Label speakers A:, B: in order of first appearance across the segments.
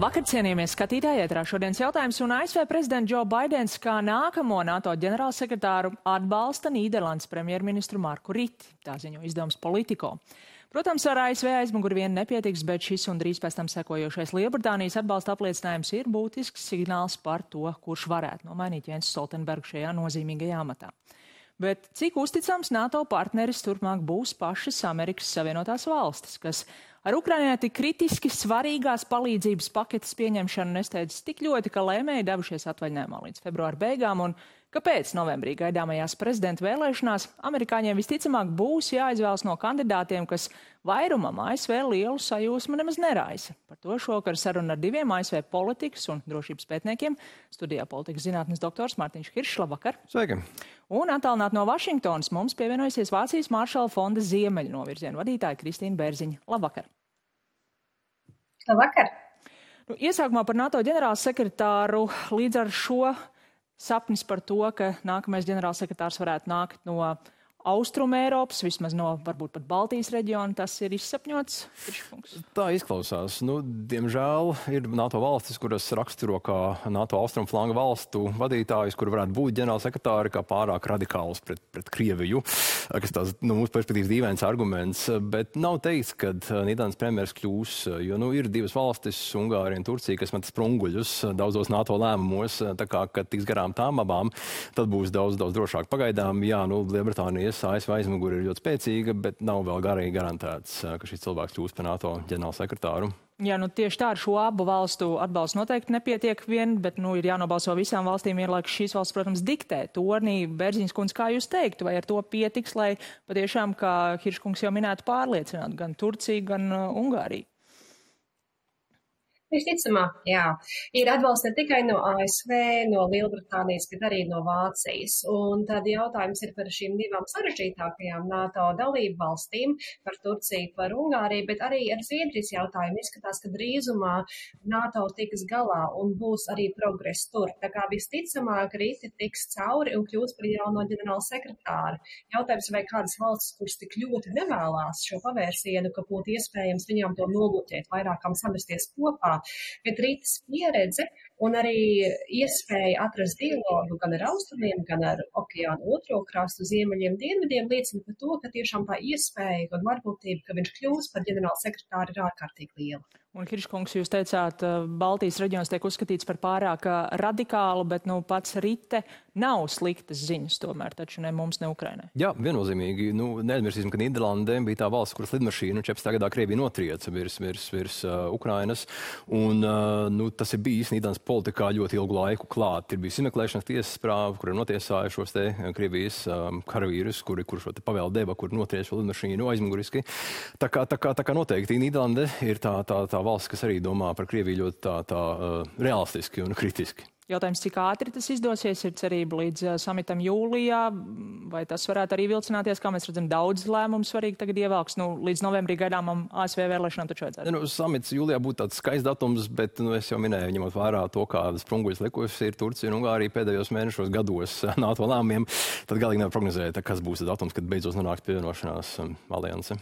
A: Labvakar, cienījamies skatītāji, ētrā šodienas jautājums, un ASV prezidents Joe Baidens kā nākamo NATO ģenerālsekretāru atbalsta Nīderlandes premjerministru Marku Riti, tā ziņo izdevums Politico. Protams, ar ASV aizmuguri vien nepietiks, bet šis un drīz pēc tam sekojošais Lielbritānijas atbalsta apliecinājums ir būtisks signāls par to, kurš varētu nomainīt Jensu Stoltenbergu šajā nozīmīgajā amatā. Bet cik uzticams NATO partneris turpmāk būs pašas Amerikas Savienotās valstis, kas ar Ukrainai tik kritiski svarīgās palīdzības paketes pieņemšanu nesteidz tik ļoti, ka lēmēji devušies atvaļinājumā līdz februāra beigām, un kāpēc novembrī gaidāmajās prezidenta vēlēšanās amerikāņiem visticamāk būs jāizvēlas no kandidātiem, kas vairumam ASV lielu sajūsmu nemaz neraisa. Par to šovakar saruna ar diviem ASV politikas un drošības pētniekiem. Studijā politikas zinātnes doktors Mārtiņš Kiršs, labvakar.
B: Sveiki.
A: Un attālināt no Vašingtonas mums pievienojusies Vācijas Maršala fonda ziemeļu novirzienu vadītāja Kristīna Bērziņa. Labvakar.
C: Labvakar.
A: Iesākumā par NATO ģenerālsekretāru līdz ar šo sapnis par to, ka nākamais ģenerālsekretārs varētu nākt no Austruma Eiropas, vismaz no varbūt pat Baltijas reģiona, tas ir izsapņots?
B: Tā izklausās. Diemžēl ir NATO valstis, kuras raksturo kā NATO austrumu flanga valstu vadītājus, kuri varētu būt ģenerālsekretāri kā pārāk radikāls pret Krieviju, kas tās, mūsu perspektīvas dīvains arguments, bet nav teikts, ka Nīderlandes premjeras kļūs, jo, ir divas valstis, Ungārija un Turcija, kas met sprunguļus daudzos NATO lēmumos, tā kā, kad tiks garām tām abām, tad būs daudz drošāk. Pagaidām, jā, Lielbritānijas ASV aizmuguri ir ļoti spēcīga, bet nav vēl garīgi garantēts, ka šis cilvēks kļūs par NATO ģenerālsekretāru.
A: Jā, tieši tā ar šo abu valstu atbalstu noteikti nepietiek vien, bet ir jānobalso visām valstīm vienlaikus šīs valsts, protams, diktē tornī. Bērziņas kundze, kā jūs teiktu, vai ar to pietiks, lai patiešām, kā Hirškungs jau minētu, pārliecinātu gan Turciju, gan Ungāriju?
C: Visticamāk, jā. Ir atbalsts ne tikai no ASV, no Lielbritānijas, bet arī no Vācijas. Un tad jautājums ir par šīm divām sarežģītākajām NATO dalību valstīm, par Turciju, par Ungāriju, bet arī ar Zviedrijas jautājumu izskatās, ka drīzumā NATO tiks galā un būs arī progress tur. Tā kā visticamāk Riti tiks cauri un kļūs par jauno ģenerāla sekretāru. Jautājums, vai kādas valstis, kuras tik ļoti nevēlās šo pavērsienu, ka būtu iespējams viņām to nobloķēt, vairākām samesties kopā. Bet Rītas pieredze un arī iespēja atrast dialogu gan ar austrumiem, gan ar okeānu otro krastu, ziemeļiem, dienvidiem liecina par to, ka tiešām tā iespēja un varbūtība, ka viņš kļūs par ģenerāla sekretāru, ir ārkārtīgi liela.
A: Un, Hirškungs, jūs teicāt, Baltijas reģions tiek uzskatīts par pārāk radikālu, bet pats Rite nav sliktas ziņas tomēr, taču ne mums, ne Ukrainai.
B: Jā, viennozīmīgi. Neaizmirsīsim, ka Nīderlande bija tā valsts, kuras lidmašīnu 14. gadā Krievija notrieca virs Ukrainas. Un tas ir bijis Nīderlandes politikā ļoti ilgu laiku klāt. Ir bijis izmeklēšanas tiesas prāva, kur ir notiesājuši šos te Krievijas karavīrus, kuri šo te pavēlu deva, kur notrieca šo lidmašīnu aizmuguriski. Tā kā noteikti Nīderlande ir tā valsts, kas arī domā par Krieviju ļoti tā realistiski un kritiski.
A: Jautājums, cik ātri tas izdosies, ir cerība līdz samitam jūlijā, vai tas varētu arī vilcināties, kā mēs redzam, daudz lēmumu svarīgi tagad ievelks, līdz novembrī gaidāmam ASV vēlēšanām taču vajadzētu.
B: Samits jūlijā būtu tāds skaists datums, bet es jau minēju, ņemot vērā to, kādas sprunguļas likusi ir Turcija un Ungārija pēdējos mēnešos gados NATO lēmumiem, tad galīgi nevar prognozēt, kas būs tas datums, kad beidzot nonāks pievienošanās alianse.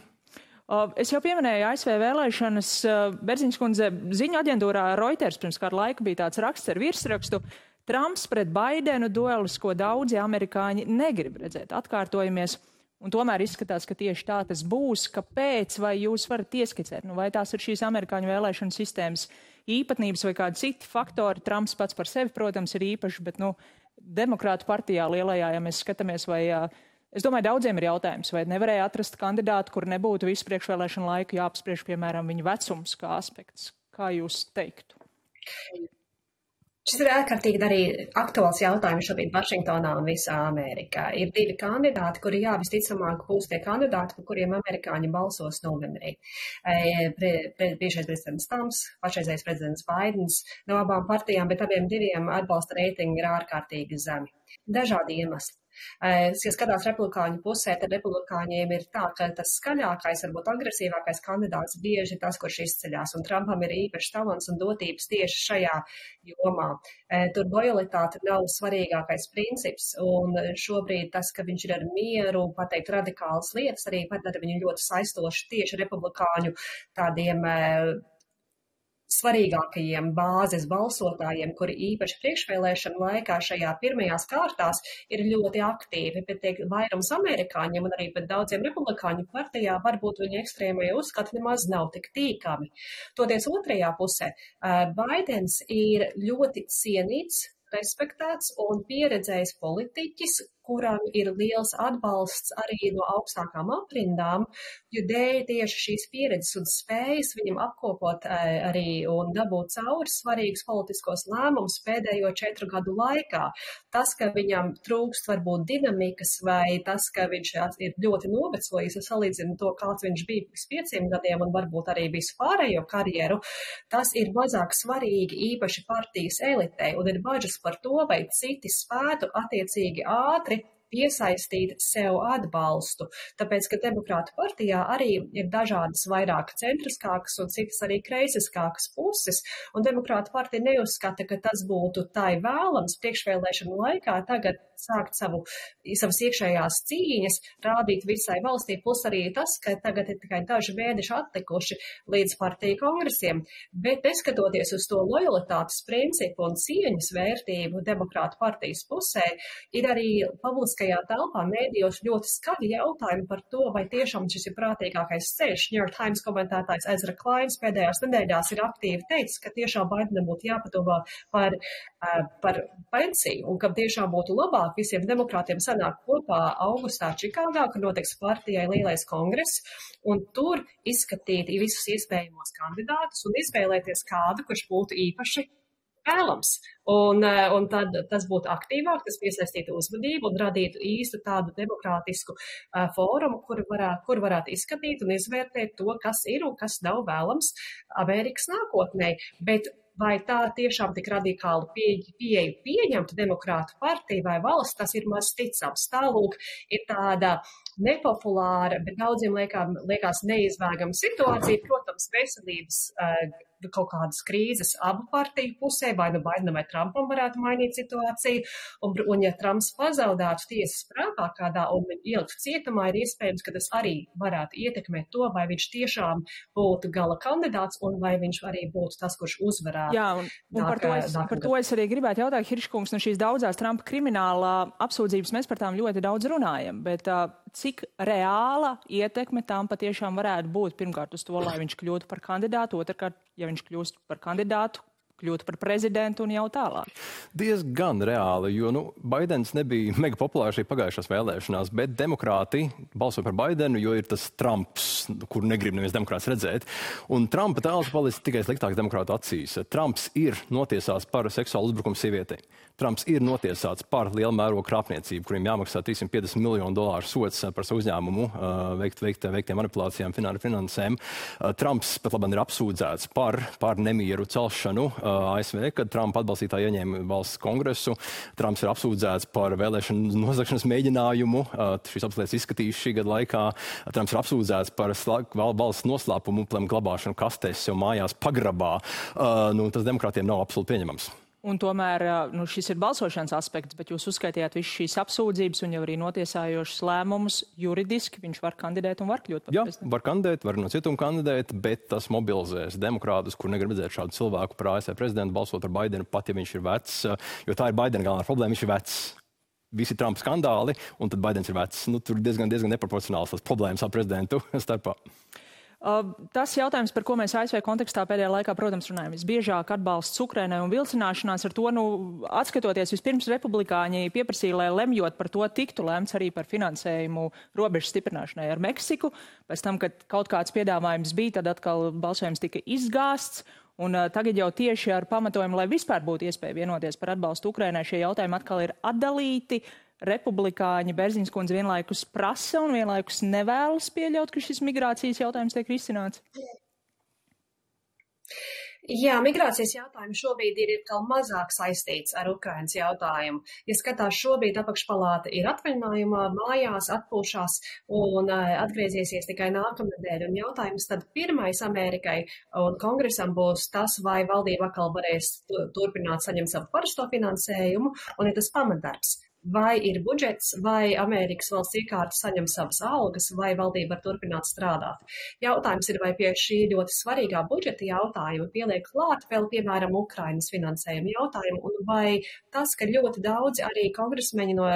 A: Es jau pieminēju ASV vēlēšanas. Bērziņas kundze, ziņu aģentūrā Reuters pirms kādu laiku bija tāds raksts ar virsrakstu: Trumps pret Baidenu duelis, ko daudzi amerikāņi negrib redzēt. Atkārtojamies, un tomēr izskatās, ka tieši tā tas būs. Kāpēc, vai jūs varat ieskicēt? Vai tās ir šīs amerikāņu vēlēšanu sistēmas īpatnības vai kādi citi faktori? Trumps pats par sevi, protams, ir īpašs, bet demokrātu partijā lielajā, ja mēs skatāmies, vai es domāju, daudziem ir jautājums, vai nevarēja atrast kandidātu, kur nebūtu visu priekšvēlēšanu laiku jāapspriež, piemēram, viņa vecums kā aspekts. Kā jūs teiktu?
C: Šis ir ārkārtīgi arī aktuāls jautājums šobrīd Vašingtonā un visā Amerikā. Ir divi kandidāti, kuri visticamāk būs tie kandidāti, par kuriem amerikāņi balsos novembrī. Bijušais prezidents Trumps, pašreizējais prezidents Baidens, no abām partijām, bet abiem diviem atbalsta reitingi ir ārkārtīgi zemi. Dažādi iemesli. Ja skatās republikāņu pusē, tad republikāņiem ir tā, ka tas skaļākais, varbūt agresīvākais kandidāts bieži ir tas, kurš izceļās, un Trumpam ir īpašs talants un dotības tieši šajā jomā. Tur lojalitāte nav svarīgākais princips, un šobrīd tas, ka viņš ir ar mieru, pateikt radikālas lietas, arī padara viņu ļoti saistoši tieši republikāņu tādiem svarīgākajiem bāzes balsotājiem, kuri īpaši priekšvēlēšana laikā šajā pirmajās kārtās ir ļoti aktīvi, bet tiek vairums amerikāņiem un arī pat daudziem republikāņu partijā varbūt viņa ekstrēmie uzskati nemaz nav tik tīkami. Toties otrajā pusē, Baidens ir ļoti cienīts, respektēts un pieredzējis politiķis, kuram ir liels atbalsts arī no augstākām aprindām, jo dēļ tieši šīs pieredzes un spējas viņam apkopot arī un dabūt cauri svarīgus politiskos lēmumus pēdējo 4 gadu laikā. Tas, ka viņam trūkst varbūt dinamikas vai tas, ka viņš ir ļoti novecojis, salīdzinu to, kāds viņš bija pirms 5 gadiem un varbūt arī visu pārējo karjeru, tas ir mazāk svarīgi īpaši partijas elitei un ir bažas par to, vai citi spētu attiecīgi ātri piesaistīt sev atbalstu, tāpēc, ka Demokrātu partijā arī ir dažādas vairāk centriskākas un citas arī kreisiskākas puses, un Demokrātu partija neuzskata, ka tas būtu tai vēlams priekšvēlēšanu laikā tagad sākt savas iekšējās cīņas, rādīt visai valstī, plus arī tas, ka tagad ir tikai daži mēneši atlikuši līdz partiju kongresiem, bet neskatoties uz to lojalitātes principu un cieņas vērtību Demokrātu partijas pusē, ir arī publiskajā telpā mēdījos ļoti skaļi jautājumi par to, vai tiešām šis ir prātīgākais ceļš. New York Times komentētājs Ezra Kleins pēdējās nedēļās ir aktīvi teicis, ka tiešām Baidenam būtu jāpadomā par pensiju un ka tiešām būtu labāk visiem demokrātiem sanāk kopā augustā Čikāgā, kur notiks partijai lielais kongress, un tur izskatīt visus iespējamos kandidātus un izvēlēties kādu, kurš būtu īpaši vēlams. Un tad tas būtu aktīvāk, tas piesaistītu uzvedību un radītu īstu tādu demokrātisku fórumu, kur varētu izskatīt un izvērtēt to, kas ir un kas nav vēlams Amerikas nākotnē. Bet vai tā tiešām tik radikālu pieeju pieņemtu Demokrātu partiju vai valsts, tas ir maz ticams. Tālūk ir tāda nepopulāra, bet daudziem liekas neizbēgama situācija. Protams, veselības kaut kādas krīzes abu partiju pusē, vai nu Baidenam vai Trumpam varētu mainīt situāciju, un ja Trumps pazaudātu tiesas prātā kādā un ieliktu cietumā, ir iespējams, ka tas arī varētu ietekmēt to, vai viņš tiešām būtu gala kandidāts un vai viņš arī būtu tas, kurš uzvarētu.
A: Jā, un par to es arī gribētu jautāt, Hirškungs, no šīs daudzās Trumpa kriminālā apsūdzības mēs par tām ļoti daudz runājam, bet cik reāla ietekme tām patiešām varētu būt pirmkārt uz to, lai viņš kļūtu par kandidātu, otrkārt, ja viņš kļūst par kandidātu, kļūt par prezidentu un jau tālāk?
B: Diezgan reāli, jo Baidens nebija mega populārs arī pagājušās vēlēšanās, bet demokrāti balso par Baidenu, jo ir tas Trumps, kuru negrib neviens demokrāts redzēt. Un Trumpa tēls palicis tikai sliktāks demokrātu acīs. Trumps ir notiesāts par seksuālu uzbrukumu sievietei. Trumps ir notiesāts par lielu mērogu krāpniecību, kuriem jāmaksā $350 miljonu sods par savu uzņēmumu veiktiem manipulācijām, finansēm. Trumps pat labāk ir apsūdzēts par nemieru celšanu ASV, kad Trumpa atbalstītāji ieņēma valsts kongresu. Trumps ir apsūdzēts par vēlēšanu nozagšanas mēģinājumu. Šīs apsūdzības izskatīs šī gada laikā. Trumps ir apsūdzēts par valsts noslēpumu glabāšanu kastēs sev mājās pagrabā. Tas demokrātiem nav absolūti pieņemams.
A: Un tomēr šis ir balsošanas aspekts, bet jūs uzskaitījāt visu šīs apsūdzības un jau arī notiesājošas lēmumus juridiski. Viņš var kandidēt un var kļūt par prezidentu.
B: Jā, var kandidēt, var no cietuma kandidēt, bet tas mobilizēs demokrātus, kur negrib redzēt šādu cilvēku par ASV prezidentu, balsot par Baidenu, pat ja viņš ir vecs, jo tā ir Baidena galvenā problēma, viņš ir vecs. Visi Trumpa skandāli, un tad Baidens ir vecs. Tur diezgan neproporcionāls tas problēmas ar prezidentu starpā.
A: Tas jautājums, par ko mēs ASV kontekstā pēdējā laikā, protams, runājam, visbiežāk atbalsts Ukrainai un vilcināšanās ar to, atskatoties vispirms republikāņi pieprasīja, lai lemjot par to tiktu lēmts arī par finansējumu robežu stiprināšanai ar Meksiku. Pēc tam, kad kaut kāds piedāvājums bija, tad atkal balsojums tika izgāsts. Un tagad jau tieši ar pamatojumu, lai vispār būtu iespēja vienoties par atbalstu Ukrainai, šie jautājumi atkal ir atdalīti. Republikāņi Berziņas kundze vienlaikus prasa un vienlaikus nevēlas pieļaut, ka šis migrācijas jautājums tiek risināts?
C: Jā, migrācijas jautājums šobrīd ir kaut mazāk saistīts ar Ukrainas jautājumu. Ja skatās, šobrīd apakšpalāta ir atvaļinājumā, mājās, atpūšās un atgriezīsies tikai nākamnedēļ. Un jautājums tad pirmais Amerikai un kongresam būs tas, vai valdība atkal varēs turpināt saņemt savu parasto finansējumu, un ir tas pamatdarbs. vai ir budžets, vai Amerikas valsts iekārta saņem savas algas, vai valdība var turpināt strādāt. Jautājums ir, vai pie šī ļoti svarīgā budžeta jautājuma pieliek klāt vēl, piemēram, Ukrainas finansējuma jautājumu, un vai tas, ka ļoti daudzi arī kongresmeņi no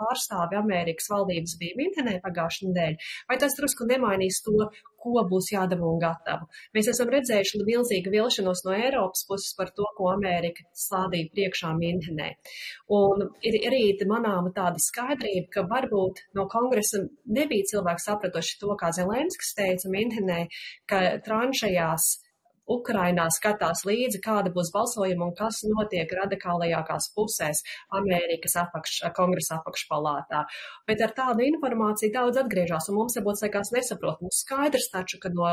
C: pārstāvi Amerikas valdības bija Minhenē pagājušajā nedēļā, vai tas drusku nemainīs to, ko būs jādara un gatavu. Mēs esam redzējuši milzīgu vilšanos no Eiropas puses par to, ko Amerika stādīja priekšā Minhenē. Un ir arī manāma tāda skaidrība, ka varbūt no kongresa nebija cilvēki sapratuši to, kā Zelenskis teica Minhenē, ka tranšajās Ukrainā skatās līdzi, kāda būs balsojuma un kas notiek radikālajākās pusēs Amerikas kongresa apakšpalātā. Bet ar tādu informāciju daudz atgriežās, un mums varbūt sakās nesaprotams. Skaidrs taču, ka no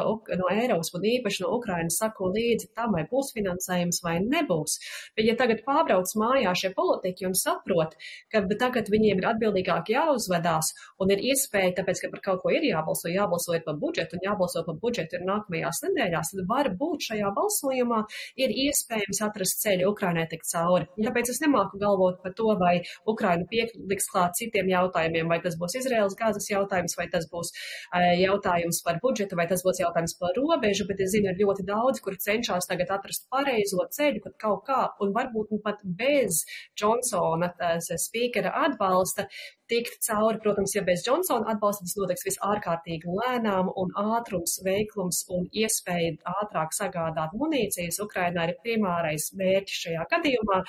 C: Eiropas un īpaši no Ukrainas sako līdzi tam, vai būs finansējums vai nebūs. Bet ja tagad pārbrauc mājā šie politiķi un saprot, ka tagad viņiem ir atbildīgāk jāuzvedās un ir iespēja, tāpēc, ka par kaut ko ir jābalso ir par budžetu un jābalso par budžetu ir nākamajās nedēļās, tad var būt šajā balsojumā ir iespējams atrast ceļu Ukrainai tikt cauri. Tāpēc es nemāku galvot par to, vai Ukraina pieliks klāt citiem jautājumiem, vai tas būs Izraēlas Gazas jautājums, vai tas būs jautājums par budžetu, vai tas būs jautājums par robežu, bet es zinu, ir ļoti daudz, kur cenšas tagad atrast pareizo ceļu, pat kaut kā, un varbūt pat bez Džonsona spīkera atbalsta tikt cauri. Protams, ja bez Džonsona atbalsta, tas notiks visārkārtīgi lēnām, un ātrums, veiklums un iespēja ātrāk sagādāt munīcijas Ukrainā ir primārais mērķis šajā gadījumā,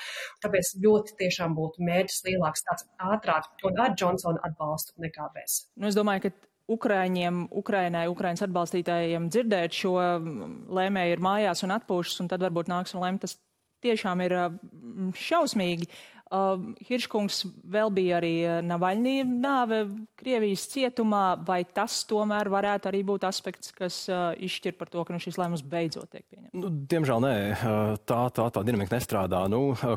C: tāpēc ļoti tiešām būtu mērķis lielāks tāds ātrāk un ar Džonsona atbalstu nekā bez.
A: Nu, es domāju, ka Ukrainas atbalstītājiem dzirdēt šo lēmēju ir mājās un atpūšas, un tad varbūt nāks un lēm, tas tiešām ir šausmīgi. Hirškungs, vēl bija arī Navaļnī nāve Krievijas cietumā, vai tas tomēr varētu arī būt aspekts, kas izšķir par to, ka šis lēmums beidzot tiek pieņemts?
B: Diemžēl nē, tā dinamika nestrādā.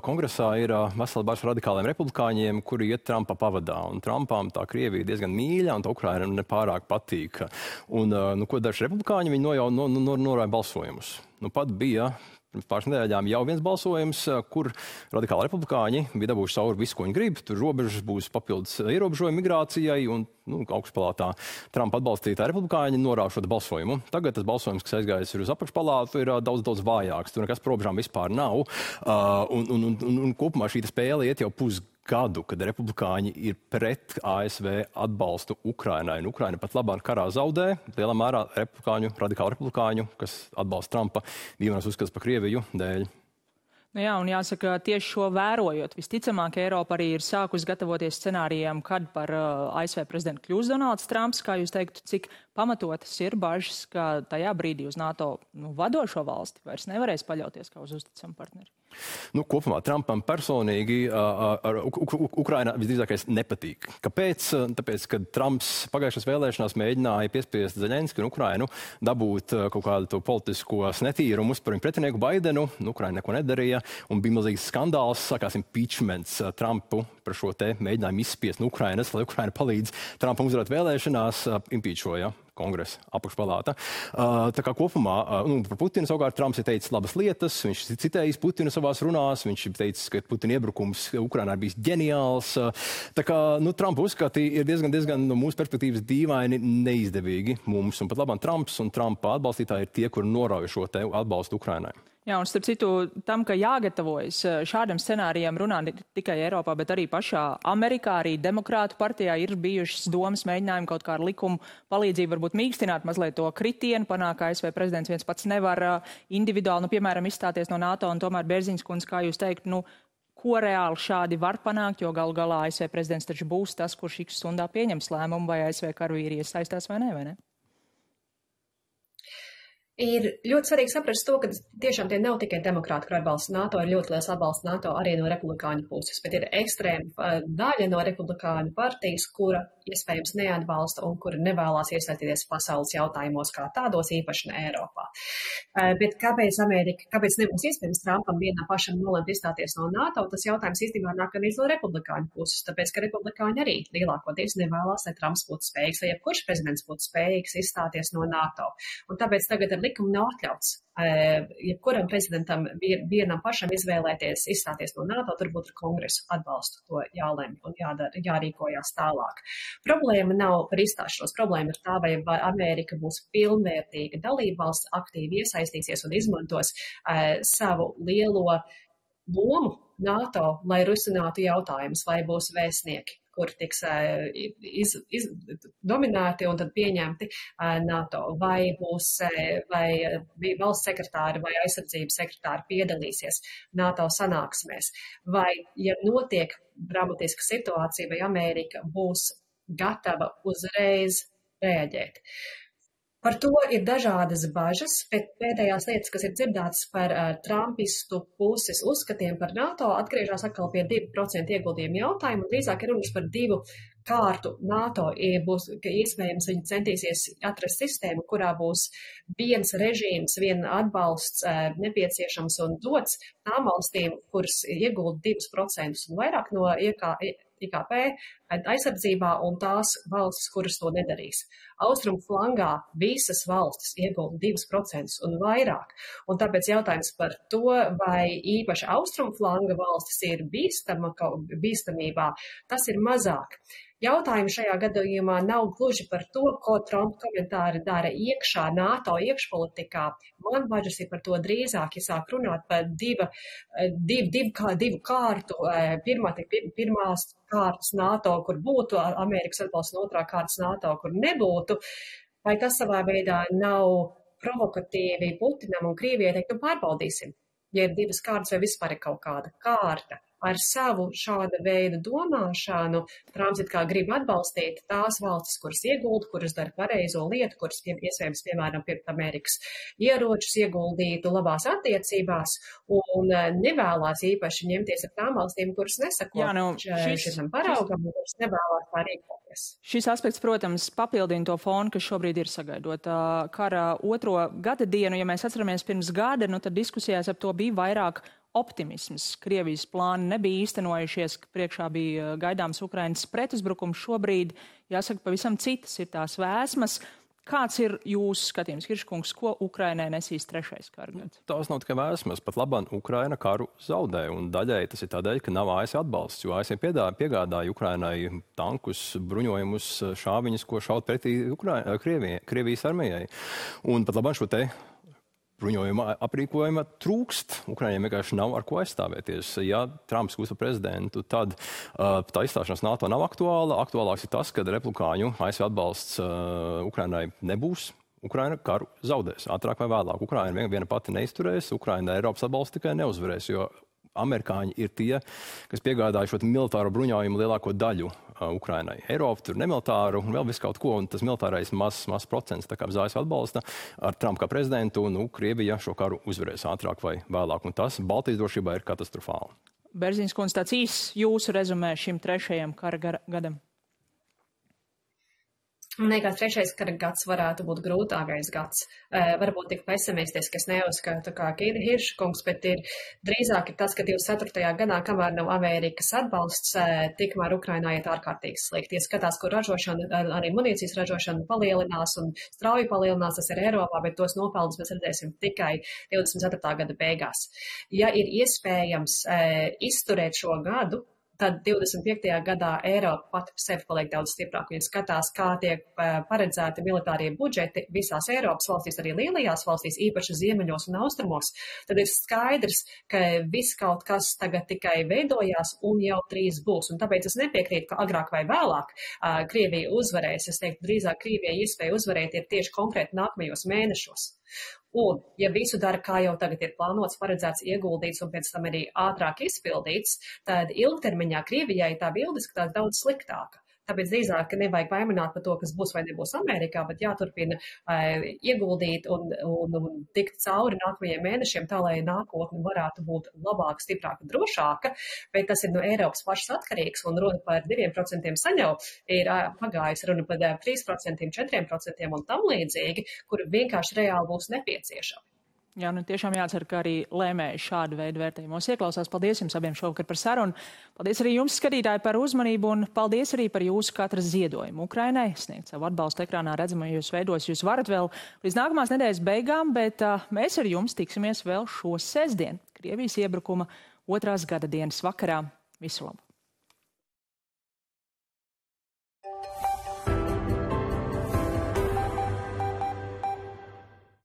B: Kongresā ir vesela bars radikāliem republikāņiem, kuri iet Trumpa pavadā, un Trumpām tā Krievija diezgan mīļa, un tā Ukraina nepārāk patīk. Un, ko daži republikāņi, viņi norāja balsojumus. Pat bija pirms pāris nedēļām jau viens balsojums, kur radikāli republikāņi bija dabūjuši cauri visu, ko viņi grib. Tur robežas būs papildus ierobežojumi migrācijai, un augšpalātā Trumpa atbalstītāji republikāņi norāda šo balsojumu. Tagad tas balsojums, kas aizgājis uz apakšpalātu, ir daudz vājāks. Tur nekas par robežām vispār nav. Un kopumā šī spēle iet jau pusgadu, kad republikāņi ir pret ASV atbalstu Ukrainai. Un Ukraina pat labāk karā zaudē, lielā mērā radikālu republikāņu, kas atbalsta Trumpa dīvainos uzskats par Krieviju dēļ.
A: Jā, un jāsaka, tieši šo vērojot, visticamāk, Eiropa arī ir sākus gatavoties scenārijiem, kad par ASV prezidentu kļūs Donalds Trumps. Kā jūs teiktu, cik pamatotas ir bažas, ka tajā brīdī uz NATO vadošo valsti vairs nevarēs paļauties kā uz uzticamu partneri?
B: Kopumā Trumpam personīgi Ukraina visdrīzākais nepatīk. Kāpēc? Tāpēc, ka Trumps pagājušās vēlēšanās mēģināja piespiest Zeļenski un Ukrainu dabūt kaut kādu politiskos netīrumus par viņu pretinieku Baidenu. Ukraina neko nedarīja, un bija milzīgs skandāls, sākās impeachments Trumpu par šo te mēģinājumu izspiest no Ukrainas, lai Ukraina palīdz Trumpam uzvarēt vēlēšanās, impeachoja kongresa apakšpalāta. Tā kā kopumā par Putinu savukārt Trumps ir teicis labas lietas, viņš citējis Putinu savās runās, viņš ir teicis, ka Putina iebrukums Ukrainā ir bijis ģeniāls. Tā kā Trumpa uzskati ir diezgan no mūsu perspektīvas dīvaini neizdevīgi mums, un pat labāk Trumps un Trumpa atbalstītāji ir tie, kuri norauj šo te atbalstu Ukrainai.
A: Jā, un starp citu tam, ka jāgatavojas šādam scenārijam runā ne tikai Eiropā, bet arī pašā Amerikā, arī Demokrātu partijā ir bijušas domas mēģinājumi kaut kā ar likumu palīdzību varbūt mīkstināt mazliet to kritienu, panāk, ka ASV prezidents viens pats nevar individuāli, piemēram, izstāties no NATO, un tomēr Bērziņas kundze, kā jūs teikt, ko reāli šādi var panākt, jo galu galā ASV prezidents taču būs tas, kurš X stundā pieņems lēmumu, vai ASV karavīri iesaistās vai ne?
C: Ir ļoti svarīgi saprast to, ka tiešām tie nav tikai demokrāti, kur atbalsta NATO, ir ļoti liels atbalsts NATO arī no republikāņu puses, bet ir ekstrēma daļa no republikāņu partijas, kura iespējams neatbalsta un kura nevēlās iesaistīties pasaules jautājumos kā tādos, īpaši ne Eiropā. Bet kāpēc nebūs iespējams Trumpam vienā pašam nolemt izstāties no NATO, tas jautājums īstenībā nāk arī no republikāņu puses, tāpēc, ka republikāņi arī lielākoties nevēlās, lai Trumps būtu spējīgs, lai jebkurš prezidents būtu spējīgs izstāties no NATO. Un tāpēc tagad ar likuma nav atļauts. Jebkuram prezidentam vienam pašam izvēlēties, izstāties no NATO, turbūt ar kongresu atbalstu to jālemj un jārīkojās tālāk. Problēma nav par izstāšanos, problēma ir tā, vai Amerika būs pilnvērtīga dalībvalsts, aktīvi iesaistīsies un izmantos savu lielo lomu NATO, lai risinātu jautājumus, vai būs vēstnieki, kur tiks dominēti un tad pieņemti NATO, vai būs, vai valsts sekretāri vai aizsardzības sekretāri piedalīsies NATO sanāksmēs, vai, ja notiek dramatiska situācija, vai Amerika būs gatava uzreiz reaģēt. Par to ir dažādas bažas, bet pēdējās lietas, kas ir dzirdētas par trumpistu puses uzskatiem par NATO, atgriežas atkal pie 2% ieguldījumu jautājumu, un drīzāk ir runas par 2 kārtu NATO. Būs, ka iespējams viņi centīsies atrast sistēmu, kurā būs viens režīms, viena atbalsts nepieciešams un dots tām valstīm, kuras iegulda 2% un vairāk no IKP aizsardzībā un tās valstis, kuras to nedarīs. Austrumu flangā visas valstis iegulda 2% un vairāk. Un tāpēc jautājums par to, vai īpaši austrumu flanga valstis ir bīstamībā, tas ir mazāk. Jautājumi šajā gadījumā nav gluži par to, ko Trumpa komentāri dara iekšā NATO iekšpolitikā. Man bažas ir par to drīzāk, ja sāk runāt par divu kārtu. Pirmās kārtas NATO, kur būtu Amerikas atbalsts, un otrā kārtas NATO, kur nebūtu. Vai tas savā veidā nav provokatīvi Putinam un Krievijai teikt, pārbaudīsim, ja ir 2 kārtas vai vispār ir kaut kāda kārta. Ar savu šāda veida domāšanu Trumps it kā grib atbalstīt tās valstis, kuras iegulda, kuras dara pareizo lietu, kuras iespējams, piemēram, pirkt Amerikas ieročus, ieguldītu labās attiecībās un nevēlās īpaši ņemties ar tām valstīm, kuras nesako šitam paraugam un kuras nevēlās tā rīkoties.
A: Šis aspekts, protams, papildina to fonu, kas šobrīd ir sagaidot kara 2. gada dienu. Ja mēs atceramies pirms gada, tad diskusijās ap to bija vairāk optimisms. Krievijas plāni nebija īstenojušies, priekšā bija gaidāms Ukrainas pretuzbrukums. Šobrīd, jāsaka, pavisam citas ir tās vēsmas. Kāds ir jūsu skatījums, Hirškungs, ko Ukrainai nesīs 3. kara gads?
B: Tās nav tikai vēsmas. Pat labāk Ukraina karu zaudē, un daļai tas ir tādēļ, ka nav ASV atbalsts, jo ASV piegādāja Ukrainai tankus, bruņojumus, šāviņus, ko šaut pretī Krievijas armijai. Un pat labāk šo te bruņojuma aprīkojuma trūkst. Ukraiņiem vienkārši nav ar ko aizstāvēties. Ja Trumps kļūst par prezidentu, tad tā izstāšanās NATO nav aktuāla. Aktuālāks ir tas, ka republikāņu ASV atbalsts Ukrainai nebūs. Ukraina karu zaudēs ātrāk vai vēlāk. Ukraina viena pati neizturēs, Ukraina Eiropas atbalsts tikai neuzvarēs, jo amerikāņi ir tie, kas piegādāja šo militāro bruņojumu lielāko daļu Ukrainai. Eiropa tur nemilitāru un vēl visu kaut ko, un tas militārais mazs procents, tā kā bez ASV atbalsta ar Trumpu kā prezidentu, Krievija šo karu uzvarēs ātrāk vai vēlāk, un tas Baltijas drošībā ir katastrofāli.
A: Berziņas kundze, tāds īsts jūsu rezumē šim 3. kara gadam?
C: Man liekas, 3. kara gads varētu būt grūtākais gads. Varbūt tik pesimistisks, es neuzskatu kā Hirškungs, bet drīzāk ir tas, ka 24. gadā, kamēr nav Amerikas atbalsts, tikmēr Ukrainā iet ārkārtīgi slikti. Ja skatās, kur ražošana, arī munīcijas ražošana palielinās un strauji palielinās, tas ir Eiropā, bet tos nopelnus mēs redzēsim tikai 24. gada beigās. Ja ir iespējams izturēt šo gadu, tad 25. gadā Eiropa pati par sevi paliek daudz stiprāk. Viņi skatās, kā tiek paredzēti militārie budžeti visās Eiropas valstīs, arī lielajās valstīs, īpaši ziemeļos un austrumos. Tad ir skaidrs, ka viss kaut kas tagad tikai veidojās un jau drīz būs. Un tāpēc es nepiekrītu, ka agrāk vai vēlāk Krievija uzvarēs. Es teiktu, drīzāk Krievijai iespēja uzvarēt ir tieši konkrēti nākamajos mēnešos. Un, ja visu dara, kā jau tagad ir plānots, paredzēts, ieguldīts un pēc tam arī ātrāk izpildīts, tad ilgtermiņā Krievijai tā bilde izskatās daudz sliktāka. Tāpēc drīzāk nevajag baimināt par to, kas būs vai nebūs Amerikā, bet jāturpina ieguldīt un tikt cauri nākamajiem mēnešiem, tā lai nākotne varētu būt labāka, stiprāka, drošāka, bet tas ir no Eiropas pašas atkarīgs, un runa par 2% saņau ir pagājis runa par 3%, 4% un tam līdzīgi, kuri vienkārši reāli būs nepieciešami.
A: Jā, nu tiešām jācer, ka arī lēmēji šādu veidu vērtējumos ieklausās. Paldies jums abiem šovakar par sarunu. Paldies arī jums, skatītāji, par uzmanību un paldies arī par jūsu katras ziedojumu Ukrainai. Sniegt savu atbalstu ekrānā redzamajos veidos jūs varat vēl līdz nākamās nedēļas beigām, bet mēs ar jums tiksimies vēl šo sestdienu, Krievijas iebrukuma 2. gada dienas vakarā. Visu labu!